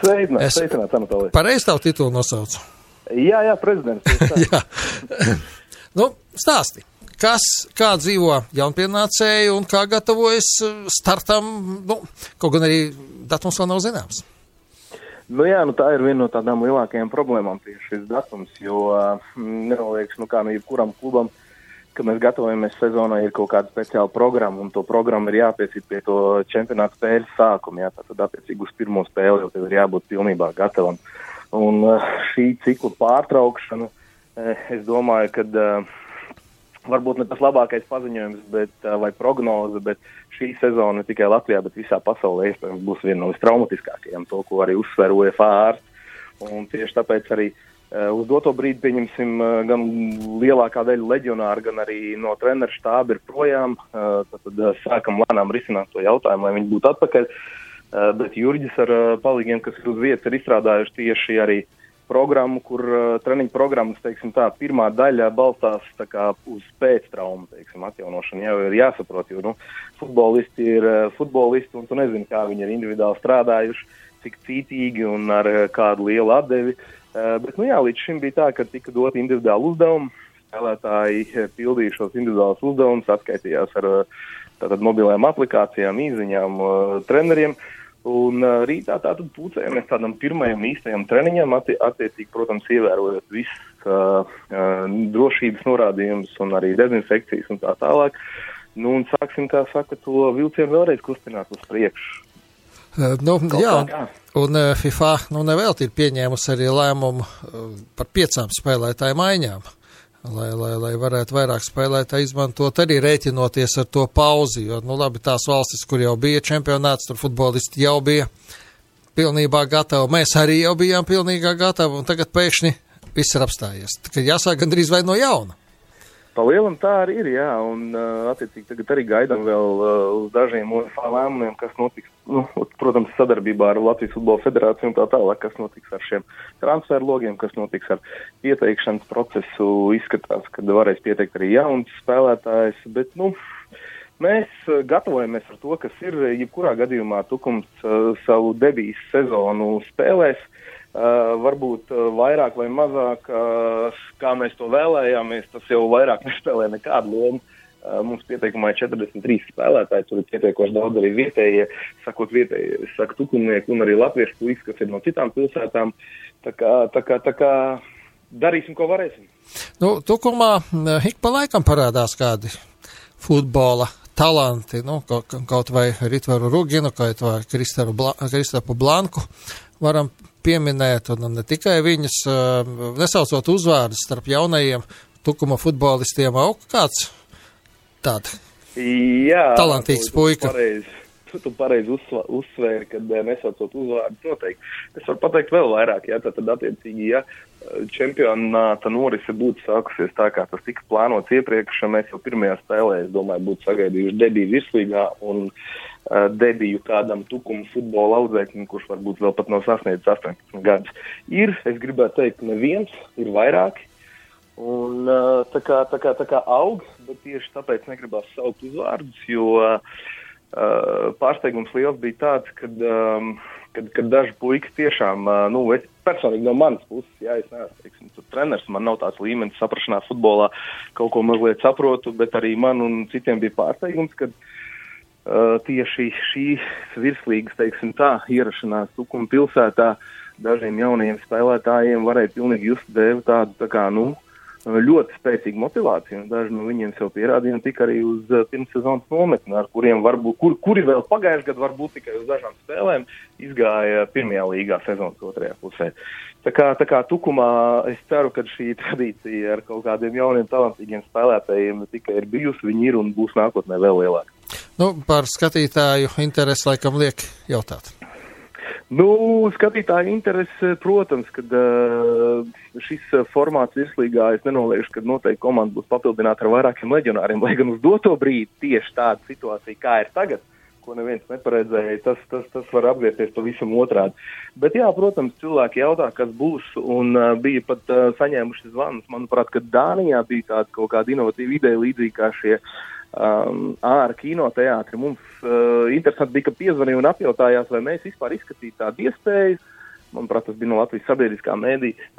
Sveicināt, Anatolij. Pareizi tavu titulu nosaucu? Jā, prezidents. Jā. Stāsti, kā dzīvo jaunpienācēji un kā gatavojas startam, kaut gan arī datums vēl nav zināms. Tā ir viena no tādām lielākajām problēmām tieši šis datums, jo nenolieks, jebkuram klubam, ka mēs gatavojamies sezonai, ir kaut kāda speciāla programma, un to programmu ir jāpiecīt pie to čempionāta spēļu sākuma. Tātad attiecīgi uz pirmo spēli jau tev ir jābūt pilnībā gatavam. Un šī cikla pārtraukšana, es domāju, ka varbūt ne tas labākais paziņojums vai prognoze, bet šī sezona ne tikai Latvijā, bet visā pasaulē iespējams būs viena no vistraumatiskākajām, to, ko arī uzsver UEFA ārsts. Un tieši tāpēc arī uz doto brīdi, pieņemsim, gan lielākā daļa leģionāru, gan arī no treneru štāba ir projām. Tad sākam lēnām risināt to jautājumu, lai viņi būtu atpakaļ. Bet Jurģis ar palīgiem, kas ir uz vietas, ir izstrādājuši tieši arī programmu, kur treniņu programmas, pirmā daļa balstās uz pēctraumu, atjaunošanu. Jau ir jāsaprot, jo, futbolisti ir futbolisti, un tu nezini, kā viņi ir individuāli strādājuši, cik cītīgi un ar kādu lielu atdevi. Bet, līdz šim bija tā, ka tika dot individuāli uzdevumi, spēlētāji pildīja šos individuālus uzdevumus, atskaitījās ar mobilajām aplikācijām, īziņām, treneriem, un rītā tātad pūcējamies tādam pirmajam īstajam treniņam, attiecīgi, protams, ievērojot visas drošības norādījumus un arī dezinfekcijas un tā tālāk. Un sāksim, kā saka, to vilcienu vēlreiz kustināt uz priekšu. Un FIFA nevelti ir pieņēmusi arī lēmumu par 5 spēlētāju maiņām, lai varētu vairāk spēlētāji izmantot, arī rēķinoties ar to pauzi, jo, tās valstis, kur jau bija čempionāts, tur futbolisti jau bija pilnībā gatavi, mēs arī jau bijām pilnībā gatavi, un tagad pēkšņi viss ir apstājies. Tad jāsāk gandrīz vai no jauna. Pa lielam tā arī ir, jā, un attiecīgi tagad arī gaidām vēl uz dažiem UEFA lēmumiem, kas notiks, protams, sadarbībā ar Latvijas Futbola Federāciju un tā tālāk, kas notiks ar šiem transferu logiem, kas notiks ar pieteikšanas procesu. Izskatās, ka varēs pieteikt arī jauns spēlētājs, bet, mēs gatavojamies ar to, kas ir, jebkurā gadījumā Tukums savu debijas sezonu spēlēs. Varbūt vairāk vai mazāk, kā mēs to vēlējāmies, tas jau vairāk nespēlē nekādu lomu. Mums pieteikumā ir 43 spēlētāji, tur ir pietiekoši daudz arī vietējie, saka tukumnieki un arī latviešu puikas, kas ir no citām pilsētām. Tā kā darīsim, ko varēsim. Tukumā ik pa laikam parādās kādi futbola talanti, kaut vai Ritvaru Ruginu, kaut vai Kristapu Blanku varam pieminēt, un ne tikai viņus, nesaucot uzvārdus starp jaunajiem Tukuma futbolistiem, kāds tāds talantīgs puika. Tu pareizi uzsvēri, kad nesaucot uzvārdus noteikti. Es varu pateikt vēl vairāk, tad attiecīgi, čempionāta norise būtu sākusies tā, kā tas tika plānots iepriekš, mēs jau pirmajā spēlē, es domāju, būtu sagaidījuši debiju virslīgā un debiju kādam Tukuma futbola audzēknim, kurš varbūt vēl pat nav sasniedzis 18 gadus. Es gribētu teikt, neviens, ir vairāki, un tā kā aug, bet tieši tāpēc negribās saukt uzvārdus, jo pārsteigums liels bija tāds, kad daži puikas tiešām, es personīgi no manas puses, es neesmu, tur treneris, man nav tāds līmenis saprašanā futbolā, kaut ko mazliet saprotu, bet arī man un citiem bija pārsteigums, kad tieši šīs virslīgas, ierašanās Tukuma pilsētā dažiem jaunajiem spēlētājiem varēja pilnīgi just dēvi tādu, ļoti spēcīgu motivāciju, un daži no viņiem sev pierādīja tika arī uz pirmssezonas nometni, ar kuriem varbūt, kuri vēl pagājuši gadu varbūt tikai uz dažām spēlēm izgāja pirmajā līgā sezonas otrajā pusē. Tā kā Tukumā es ceru, ka šī tradīcija ar kaut kādiem jauniem talantīgiem spēlētājiem tikai ir bijusi, viņi ir un būs nākotnē vēl lielāka. Par skatītāju interesi laikam liek jautāt. Skatītāju interesi, protams, kad šis formāts virslīgā, es nenoliekšu, ka noteikti komanda būs papildināta ar vairākiem leģionāriem, lai gan uz doto brīdi tieši tāda situācija, kā ir tagad, ko neviens neparedzēja, tas var apgriezties pavisam otrādi. Bet jā, protams, cilvēki jautā, kas būs, un bija pat saņēmuši zvanus. Manuprāt, ka Dānijā bija tāda kaut kāda inovatīva ideja līdzīgi kā šie ārā kinoteātri. Mums interesanti bija, ka piezvanīja un apjautājās, vai mēs vispār izskatītu tādu iespēju. Manuprāt, tas bija no Latvijas sabiedriskā mēdīja,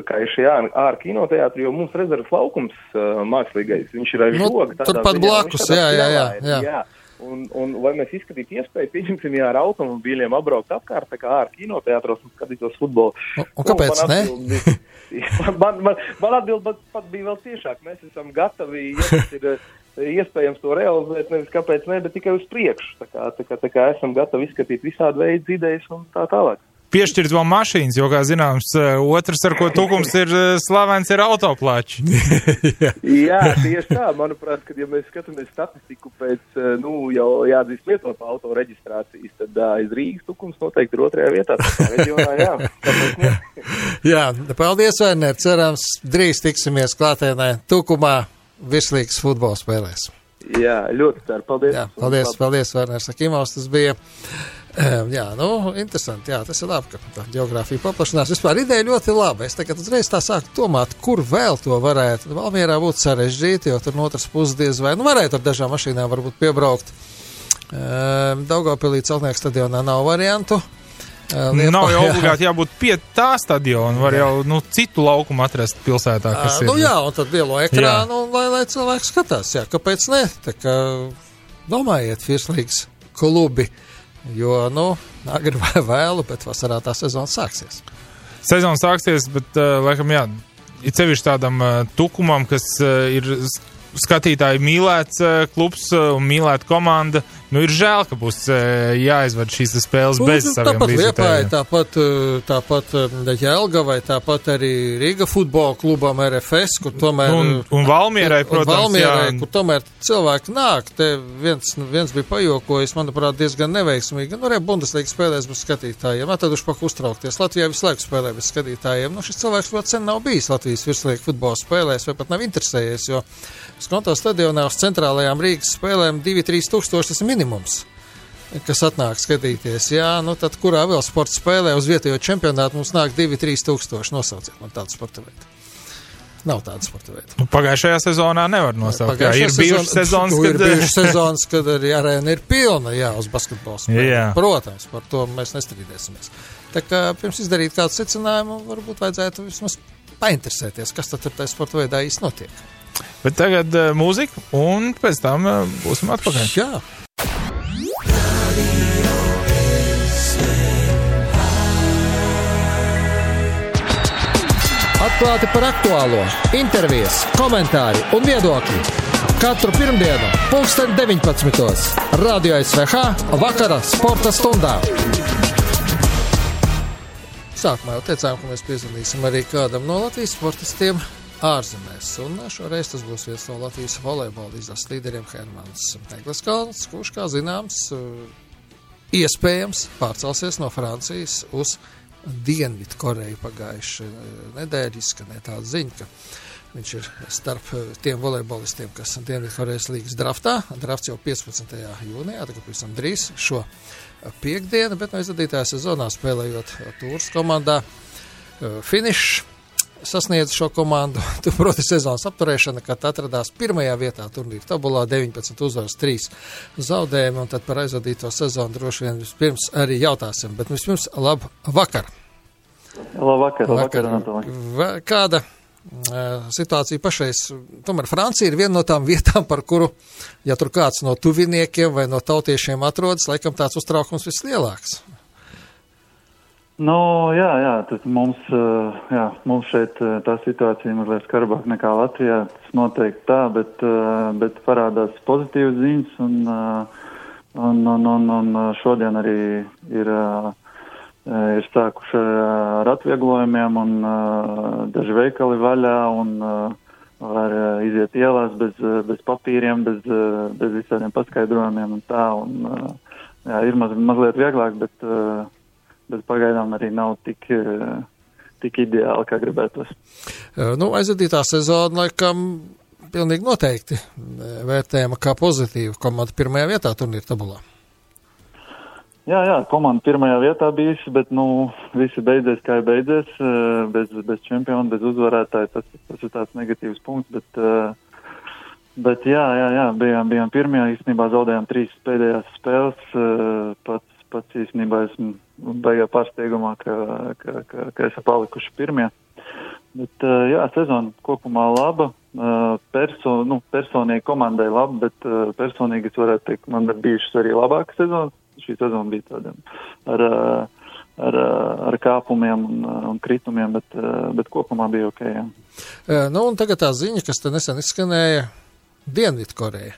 kā ir šie ārā kinoteātri, jo mums rezerves laukums mākslīgais, viņš ir aiz žoga. Turpat blakus, jā. Un vai mēs izskatītu iespēju, pieņemsim, ar automobīļiem apbraukt apkārt, tā kā ārā kinoteātros un skatītos futbolu. Un kāpēc ne? Man atbild pat bija vēl ciešāk. Mēs esam gatavi, ja tas ir iespējams to realizēt, nevis kāpēc ne, bet tikai uz priekšu. Tā kā esam gatavi izskatīt visādi veidu idejas un tā tālāk. Piešķirt vēl mašīnas, jo, kā zināms, otrs, ar ko Tukums ir slavens, ir autoplāči. Jā, tieši tā. Manuprāt, kad ja mēs skatāmies statistiku pēc, jau jāatzīst lietot auto reģistrācijas, tad aiz Rīgas Tukums noteikti ir otrajā vietā. Tā reģionā, jā. Jā, paldies, Werner. Cerams, drīz tiksimies klātienē Tukumā virslīgas futbola spēlēs. Jā, ļoti ceru. Paldies. Jā, paldies, Werner Sakimovs. Tas bija... interesanti, tas ir labi, ka tā geogrāfija paplašinās. Vispār ideja ļoti laba. Es tagad uzreiz tā sāku domāt, kur vēl to varētu. Valmierā būtu sarežģīti, jo tur no otras puses diez vai, varētu ar dažām mašīnām varbūt piebraukt. Daugavpilī Celtnieku stadionā nav variantu. Nav jau obligāti jābūt pie tā stadiona, var jau citu laukumu atrast pilsētā, kas ir. Un tad lielo ekrānu, lai cilvēki skatās, kāpēc ne? Tā kā domājiet, virslīgas klubi. Jo, agri vai vēlu, bet vasarā tā sezona sāksies. Sezona sāksies, bet, laikam, ir sevišķi tādam Tukumam, kas ir skatītāji mīlēts klubs un mīlēta komanda. Ir žēl, ka būs jāizved šīs spēles bez saviem līdzekļiem. Tāpat Jelgavai, tāpat arī Rīga futbola klubam RFS, kur tomēr... Un Valmierai, protams, kur tomēr cilvēki nāk. Te viens bija pajokojis, manuprāt, diezgan neveiksmīgi. Arī Bundeslīgas spēlēs bez skatītājiem. Tad už paku uztraukties. Latvijā visu laiku spēlē bez skatītājiem. Šis cilvēks vēl sen nav bijis Latvijas virslīgas futbola spēlēs, vai pat nav interesējies, jo Skonto stadionā uz centrālajām Rīgas spēlēm 2-3 tūkstoši tas ir minimums, kas atnāk skatīties. Tad kurā vēl sporta spēlē uz vietējo čempionātu mums nāk 2-3 tūkstoši, nosauciet man tādu sporta veidu. Nav tāda sporta veida. Pagājušajā sezonā nevar nosaukt. Ir bijušas sezonas, kad arī arēna ir pilna, uz basketbola spēlē. Protams, par to mēs nestrīdēsimies. Tā kā pirms izdarīt kādu secinājumu, varbūt vajadzētu vismaz painteresēties, kas tad tajā sporta veidā īsti notiek. Bet tagad mūzika, un pēc tam būsim atpakaļ. Jā. Atklāti par aktuālo, intervijas, komentāri un viedokļi. Katru pirmdienu, 19:00. Radio SVH vakara sporta stundā. Sākumā jau teicām, ka mēs piezvanīsim arī kādam no Latvijas sportistiem ārzemēs. Un šoreiz tas būs viens no Latvijas volejbola izlases līderiem Hermans Egleskalns, kurš, kā zināms, iespējams pārcelsies no Francijas uz Dienvidu Koreju pagājuši nedēļu. Izskanēja tāda ziņa, ka viņš ir starp tiem volejbolistiem, kas Dienvidu Korejas līgas draftā. Drafts jau 15. jūnijā, tagad pavisam drīz šo piekdienu, bet no izvadītajā sezonā spēlējot Tūras komandā finišs sasniedz šo komandu. Tur, proti, sezonas apturēšana, kad atradās pirmajā vietā turnīra tabulā, 19 uzvaras, 3 zaudējumi, un tad par aizvadīto sezonu droši vien vispirms arī jautāsim. Bet vispirms labvakar. Labvakar. Kāda situācija pašreiz? Tomēr Francija ir viena no tām vietām, par kuru, ja tur kāds no tuviniekiem vai no tautiešiem atrodas, laikam tāds uztraukums vislielāks. Tas mums šeit tā situācija mazliet skarbāk nekā Latvijā, tas noteikti tā, bet parādās pozitīvas ziņas, un šodien arī ir sākuši ar atvieglojumiem, un daži veikali vaļā, var iziet ielās bez papīriem, bez visādiem paskaidrojumiem un tā. Un, jā, ir mazliet vieglāk, bet pagaidām arī nav tik ideāli, kā gribētos. Aizvadītā sezona, laikam, pilnīgi noteikti vērtējama kā pozitīva. Komanda pirmajā vietā turnīra tabulā. Jā, komanda pirmajā vietā bijusi, bet, visi beidzies, kā ir beidzies, bez čempiona, bez uzvarētāja. Tas ir tāds negatīvs punkts, bet jā, bijām pirmajā, īstenībā zaudējām 3 pēdējās spēles. Pats īstenībā esmu baigā pārsteigumā, ka esam palikuši pirmie. Bet, jā, sezona kopumā laba. Personīgi komandai laba, bet personīgi es varētu teikt, man ir bijušas arī labākas sezonas. Šī sezona bija tāda ar kāpumiem un kritumiem, bet kopumā bija ok, jā. Un tagad tā ziņa, kas te nesen izskanēja, Dienvidkoreja.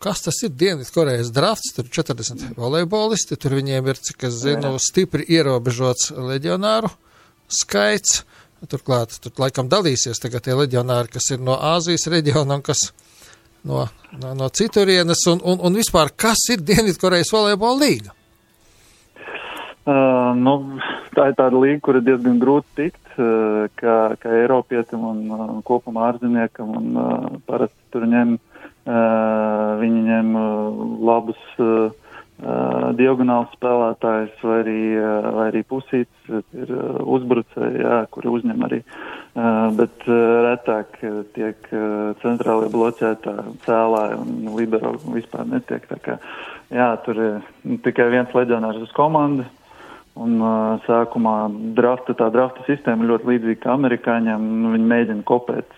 Kas tas ir Dienvidkorejas drafts? Tur 40 volejbolisti, tur viņiem ir, cik es zinu, stipri ierobežots leģionāru skaits. Turklāt, tur laikam dalīsies tagad tie leģionāri, kas ir no Āzijas reģiona un kas no citurienes, un vispār, kas ir Dienvidkorejas volejbola līga? Tā ir tāda līga, kur ir diezgan grūti tikt, kā Eiropietim un kopumā ārzemniekam, un parasti tur viņi ņem labus diagonāls spēlētājs vai arī pusīts, ir uzbrucēji, kuri uzņem arī, bet retāk tiek centrālie bloķētāji, cēlāji un libero vispār netiek. Tā kā, tur ir tikai viens leģionārs uz komandu, un sākumā tā drafta sistēma ir ļoti līdzīga kā amerikāņiem, viņi mēģina kopēt,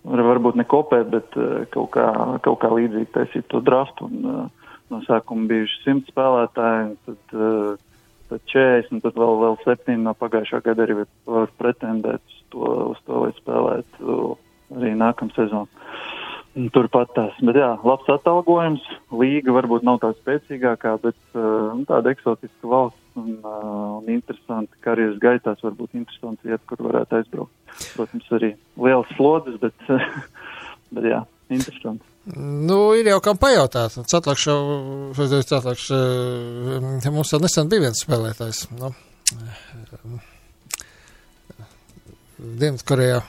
varbūt ne kopēt, bet kaut kā līdzīgi taisīt to draftu, un no sākuma bijuši 100 spēlētāji, tad 40, tad vēl 7 no pagājušā gada arī var pretendēt uz to, lai spēlētu arī nākamā sezonu. Turpat tās. Bet jā, labs atalgojums, līga varbūt nav tā spēcīgākā, bet tāda eksotiska valsts un interesanti karjeras gaitās, varbūt interesanti vieta, kur varētu aizbraukt. Protams, arī liels slodzes, bet jā, interesanti. Ir jau kam pajautāt. Cetlakš, mums vēl nesen bija viens spēlētājs. Dienvidkorejā.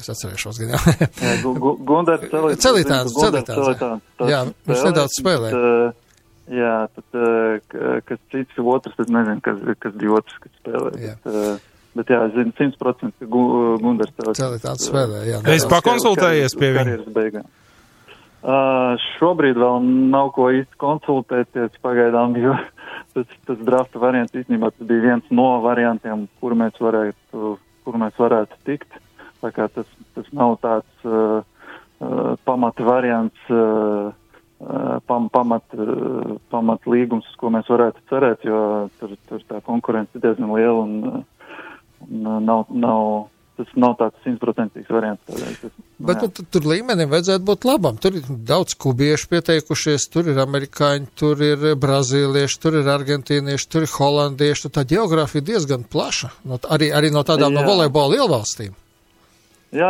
Es atcerēšos gan jau. Gundars Celitāns. Jā, viņš nedaudz spēlē. Jā, tad, kas cits otrs, tad nezinu, kas bija otrs, kas spēlē. Bet jā, es zinu 100%, ka Gundars Celitāns spēlē, jā. Es pakonsultējies pie viņa. Šobrīd vēl nav ko īsti konsultēties pagaidām, jo tas drafta variants īstenībā tas bija viens no variantiem, kur mēs varētu tikt. Tā kā tas nav tāds pamata variants, pamat līgums, uz ko mēs varētu cerēt, jo tur tā konkurence ir diezgan liela un tas nav tāds 100% variants. Bet tur līmenim vajadzētu būt labam. Tur ir daudz kubiešu pieteikušies, tur ir amerikāņi, tur ir brazīlieši, tur ir argentīnieši, tur ir holandieši. Tā geogrāfija diezgan plaša, arī no tādām no volejbola lielvalstīm. Jā,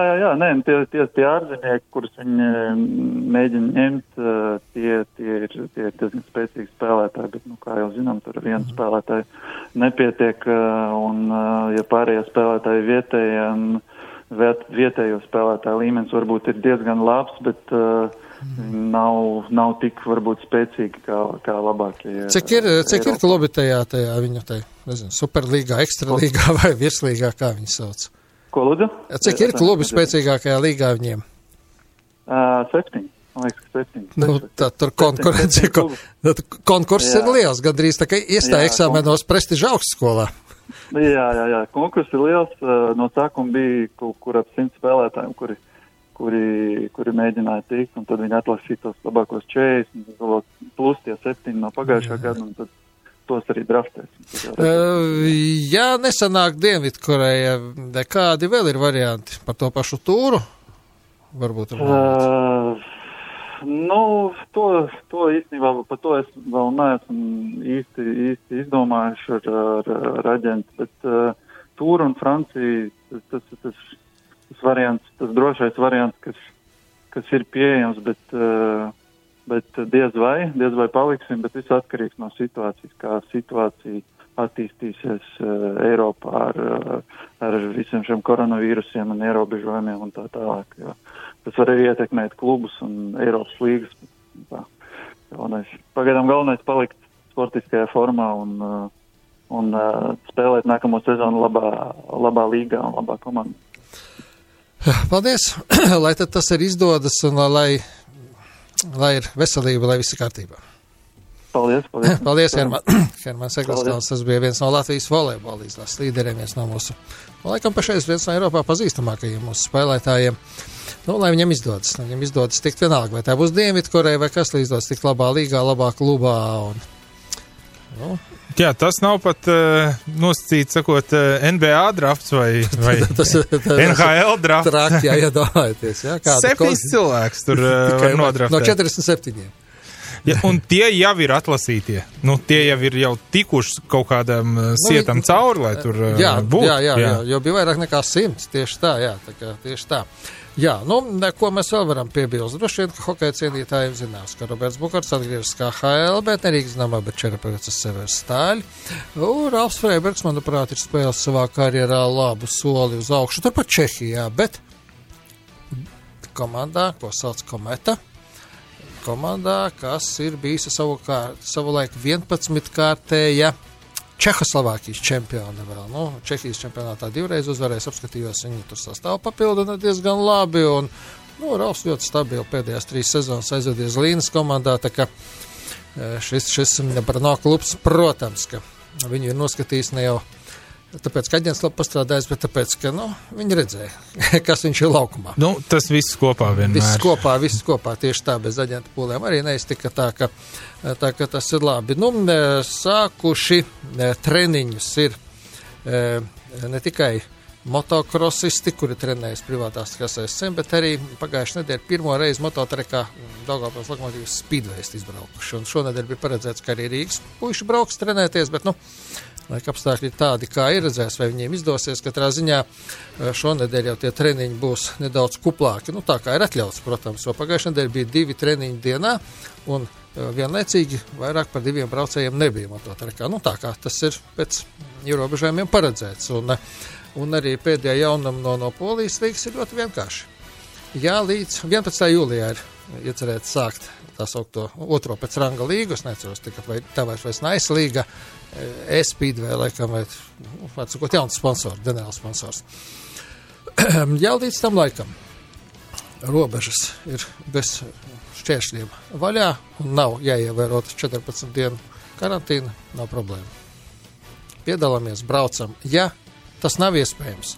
tie ārzemnieki, kurus viņi mēģina ņemt, tie ir diezgan spēcīgi spēlētāji, bet, kā jau zinām, tur viens spēlētāji nepietiek, un, ja pārējie spēlētāji vietējo spēlētāju līmenis varbūt ir diezgan labs, bet nav tik varbūt spēcīgi kā labākie. Cik ir klubi tajā viņu, nezinu, superlīgā, ekstralīgā vai virslīgā, kā viņi sauc? Ko lūdzu? Cik ir klubi spēcīgākajā līgā viņiem? 7. Man liekas, 7. Tad tur konkurss ir liels, gandrīz tā kā iestāja eksāmenos prestiža augstskolā. Jā, konkurss ir liels. No sākuma bija kaut kur ap 100 spēlētājiem, kuri mēģināja tikt, un tad viņi atlasīja tos labākos 40, plus tie 7 no pagājušā gada, un tad tos arī draftēs. Ja nesanāk Dienvidkoreja, kādi vēl ir varianti par to pašu tūru? Varbūt to īstenībā, par to es vēl neesmu īsti izdomājuši ar aģentu, bet tūru un Franciju, tas variants, tas drošais variants, kas ir pieejams, bet diez vai paliksim, bet viss atkarīgs no situācijas, kā situācija attīstīsies Eiropā ar visiem šiem koronavīrusiem un ierobežojumiem un tā tālāk. Jo tas var arī ietekmēt klubus un Eiropas līgas. Pagaidām galvenais palikt sportiskajā formā un spēlēt nākamo sezonu labā līgā un labā komandā. Paldies, lai tad tas ir izdodas un lai ir veselība, lai viss ir kārtībā. Paldies. Paldies, Hermans Eglestāls. Tas bija viens no Latvijas volejbola izlases līderiem, viens no mūsu, laikam pašreiz viens no Eiropā pazīstamākajiem mūsu spēlētājiem. Nu, lai viņam izdodas tikt vienalga, vai tā būs Dienvidkoreja, vai kas, lai izdodas tikt labā līgā, labā klubā. Jā, tas nav pat nosacīts, sakot, NBA drafts vai NHL drafts. Traki, iedomājieties. 7 cilvēks tur var nodraftēt. No 47. Ja, un tie jau ir atlasītie. Tie jau ir tikuši kaut kādam sietam cauri, lai tur būtu. Jā, jo bija vairāk nekā 100. Tieši tā, jā. Tieši tā. Jā, ko mēs vēl varam piebilst? Droši vien, ka hokeja cienītājiem zinās, ka Roberts Bukarts atgriežas kā HL, bet nerīgi zināmā, bet Čerapevecas Severs Stāļi. Ralfs Freibergs, manuprāt, ir spēles savā karjerā labu soli uz augšu. Turpat Čehijā, bet komandā, ko sauc Kometa, komandā, kas ir bijusi savulaik 11-kārtēja Čehoslovākijas čempiona vēl. Čehijas čempionātā 2 reizes uzvarēs, apskatījos, viņi tur sastāvu papildina diezgan labi, un Ralfs ļoti stabili pēdējās 3 sezonas aizvedies Līnas komandā, tā ka šis Brno klubs, protams, ka viņu ir noskatījis ne jau tāpēc, ka aģents labi pastrādājis, bet tāpēc, ka, viņi redzēja, kas viņš ir laukumā. Tas viss kopā vienmēr. Viss kopā, tieši tā, bez aģenta pūlēm arī neiztika tā, ka tas ir labi. Sākuši treniņus ir ne tikai motokrosisti, kuri trenējas privātās kasēs cen, bet arī pagājušajā nedēļā pirmo reizi mototrekā Daugavpils Lokomotīvas Speedwayst izbraukuši. Un šonedēļ bija paredzēts, ka arī Rīgas puiši brauks trenēties, bet, laika apstākļi tādi, kā ir, redzēs, vai viņiem izdosies. Katrā ziņā šonedēļ jau tie treniņi būs nedaudz kuplāki. Tā kā ir atļauts, protams, jo pagājušajā nedēļā bija 2 treniņi dienā, un vienlaicīgi vairāk par 2 braucējiem nebija mototrekā. Tā kā tas ir pēc ierobežojumiem paredzēts. Un arī pēdējā jaunuma no Polijas līgas ir ļoti vienkārši. Jā, līdz 11. jūlijā ir iecerēts sākt tā saukto otro pēc ranga līgu. Es neceros, vai tā vairs Nice līga, E-Speedway, laikam, vai sakot, jauns sponsors, Denēls sponsors. Jā, līdz tam laikam robežas ir bez šķēršļiem vaļā un nav jāievērot 14 dienu karantīna, nav problēma. Piedalāmies, braucam. Ja tas nav iespējams,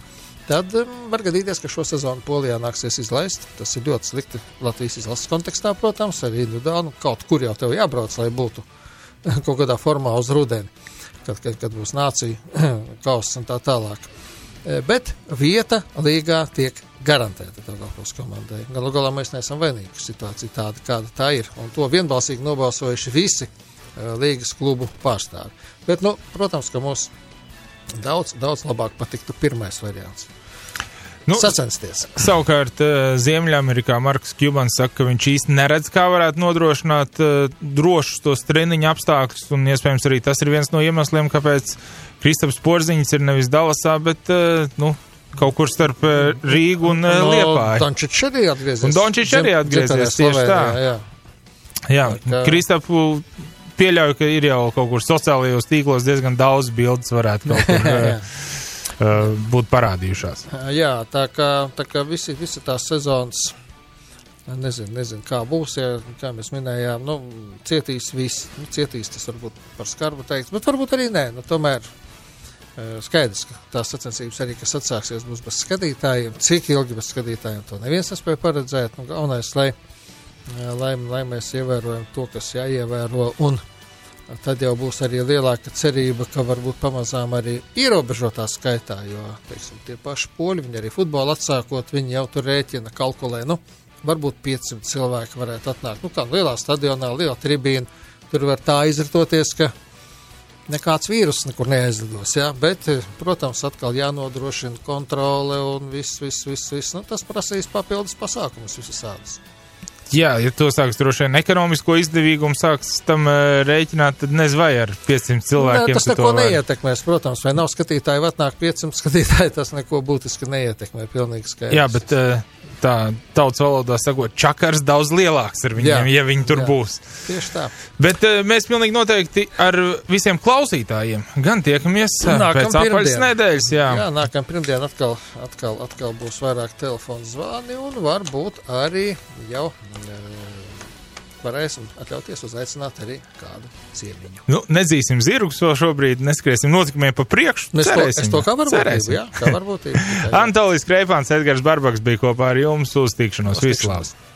tad var gadīties, ka šo sezonu Polijā nāksies izlaist. Tas ir ļoti slikti Latvijas izlases kontekstā, protams, arī individuāli. Kaut kur jau tev jābrauc, lai būtu kaut kādā formā uz rudeni, kad būs nācija kauss un tā tālāk. Bet vieta līgā tiek garantēta Daugavpils komandai. Galu galā mēs neesam vainīgi, ka situācija tāda, kāda tā ir. Un to vienbalsīgi nobalsojuši visi līgas klubu pārstāvi. Bet, protams, ka mums daudz labāk patiktu pirmais variants. Sacensties. Savukārt Ziemeļamerikā Marks Kjubans saka, ka viņš īsti neredz, kā varētu nodrošināt drošus tos treniņu apstākļus, un iespējams arī tas ir viens no iemesliem, kāpēc Kristaps Porziņš ir nevis Dallasā, bet kaut kur starp Rīgu un Liepāju. Un Dončič arī atgriezies tieši tā. Jā. Kristapu pieļauju, ka ir jau kaut kur sociālajos tīklos diezgan daudz bildes varētu kaut kur būt parādījušās. Jā, tā kā visi tās sezonas, nezinu, kā būs, ja, kā mēs minējām, cietīs visi, cietīs tas varbūt par skarbu teikt, bet varbūt arī nē, tomēr skaidrs, ka tās sacensības arī, kas atsāksies, būs bez skatītājiem, cik ilgi bez skatītājiem, to neviens nespēja paredzēt, galvenais, lai mēs ievērojam to, kas jāievēro, un tad jau būs arī lielāka cerība, ka varbūt pamazām arī ierobežotā skaitā, jo, teiksim, tie paši poļi, viņi arī futbolu atsākot, viņi jau tur rēķina, kalkulē, varbūt 500 cilvēki varētu atnākt, kā lielā stadionā, liela tribīna, tur var tā izritoties, ka nekāds vīrus nekur neaizlidos, jā, bet, protams, atkal jānodrošina kontrole un viss, nu, tas prasīs papildus pasākumus visādas. Jā, ja to sāks droši vien ekonomisko izdevīgumu sāks tam rēķināt, tad nezinu, vai ar 500 cilvēkiem. Tas neko neietekmēs, protams, vai nav skatītāji, vai atnāk 500 skatītāji, tas neko būtiski neietekmē, pilnīgi skaidrs. Jā, bet tā tautas valodā sakot, čakars daudz lielāks ar viņiem, ja viņi tur būs. Tieši tā. Bet mēs pilnīgi noteikti ar visiem klausītājiem gan tiekamies pēc apaļas nedēļas. Jā, nākam pirmdien atkal būs vairāk telefonu zvani un varbūt arī jau varēsim atļauties uzaicināt arī kādu ciemiņu. Nu, nedzīsim zirgus vēl šobrīd, neskriesim notikumiem pa priekšu. Es to kā varbūt, jā, kā varbūt. Antolijs Kreipāns, Edgars Barbaks bija kopā ar jums, uz tikšanos. Vislabāk!